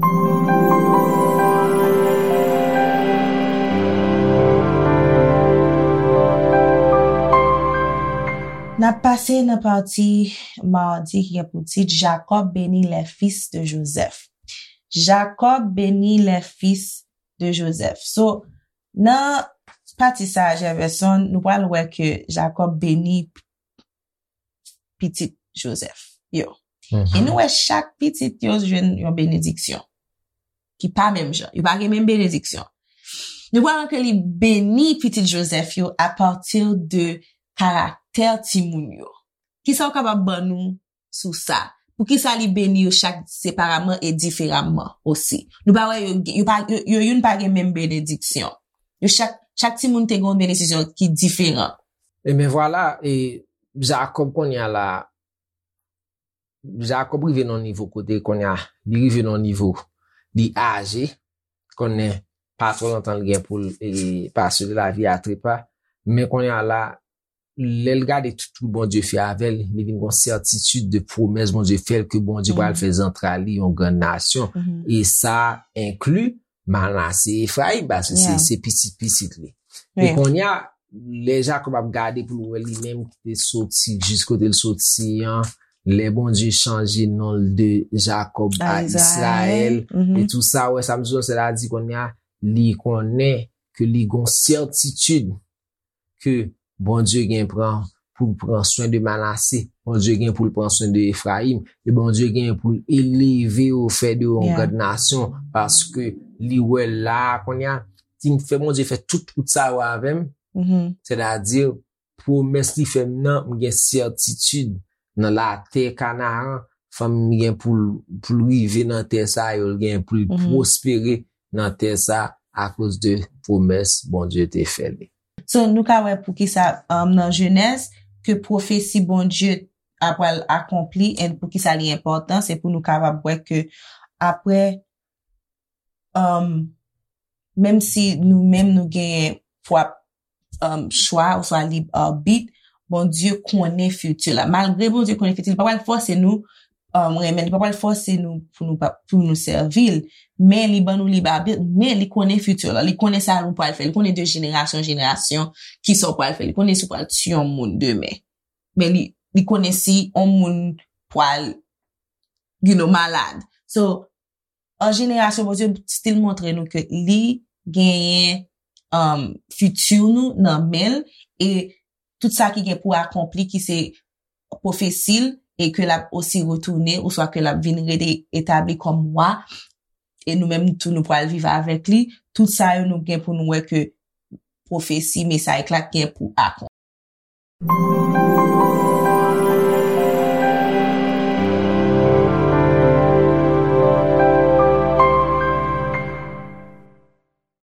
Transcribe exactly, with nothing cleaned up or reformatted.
N ap pase nan pati madi ki gen pou tit Jacob bénit les fils de Joseph. Jacob bénit les fils de Joseph. So, nan pati sa a, Jefferson, nou pral wè ke Jacob beni pitit Joseph yo. E nou wè chak pitit yo jwenn yon benediksyon ki pa menm jan. Yo pa gen menm benediksyon. Nou pral wè ke li beni pitit Joseph yo apati de karaktè timoun yo. Kisa w kapab ban nou sou sa? Poukisa li beni yo chak separaman e diferaman osi? Nou pa wè yo, yo, pa, yo, yo youn pa gen menm benediksyon. Yo chak, chak timoun te gen yon benediksyon ki diferan. E men vwala, e Jakòb kounye a la, Jakòb rive nan yon nivo kote kounye a, li rive nan yon nivo, li aje, konnen pa twò lontan li gen pou l e, pase de lavi a trepa, men kounye a la, lè l gade tout, tout Bondye fè avè l, li vin gen yon sètitid de pwomès Bondye fè l ke Bondye pral fè zantray li yon grann nasyon. E sa enkli Manase, Efrayim, paske se, se pitit, pitit li. E kounye a, lè Jakòb ap gade pou l wè li menm ki te soti jis kote l soti an, lè Bondye chanje non l de Jakòb a Izrayèl, e tou sa, wè sa m sou sètadi kounye a, li konnen ke li gon sètitid ke Bondye gen pran pou l pran swen de Manase, Bondye gen pou l pran swen de Efrayim, e Bondye gen pou l eleve yo, fè de yo yon grann nasyon, paske li wè la kounye a, li fè Bondye fè tout wout sa yo avè m, sètadi pwomès li fè m nan, m gen sètitid nan latè Kanaran, fanmi m gen pou l, pou l rive nan tè sa yo, l gen pou l pwospere nan tè sa akoz de pwomès Bondye te fè li. So, nou ka wè poukisa um, nan Jenèz, ke pwofesi Bondye ap pral akonpli, e poukisa li enpòtan, se pou nou kapab wè ke apre, um, menm si nou menm nou genyen pwòp um, chwa, oswa lib abit, Bondye konnen fiti la. Malgre Bondye konnen fiti, li pa pral fòse nou um, renmen, li pa pral fòse nou pou nou, pa- pou nou sèvi l. Men li ban nou lib abit, men li konnen fiti la. Li konnen sa nou pral fè. Li konnen de jenerasyon an jenerasyon ki sa w pral fè. Li konnen si w pral tiye yon moun demen. Men li, li konnen si yon moun pral, you know, malad. So, an jenerasyon, Bondye still montre nou ke li genyen um, fiti nou nan men l, e tout sa ki gen pou akonpli, ki se pwofesi l, e ke l ap osi retounen, oswa ke l ap vin rete etabli kòm wa, e nou menm tou nou pral viv avèk li, tout sa yo nou gen pou nou wè ke pwofesi, mesaj la gen pou akonpli.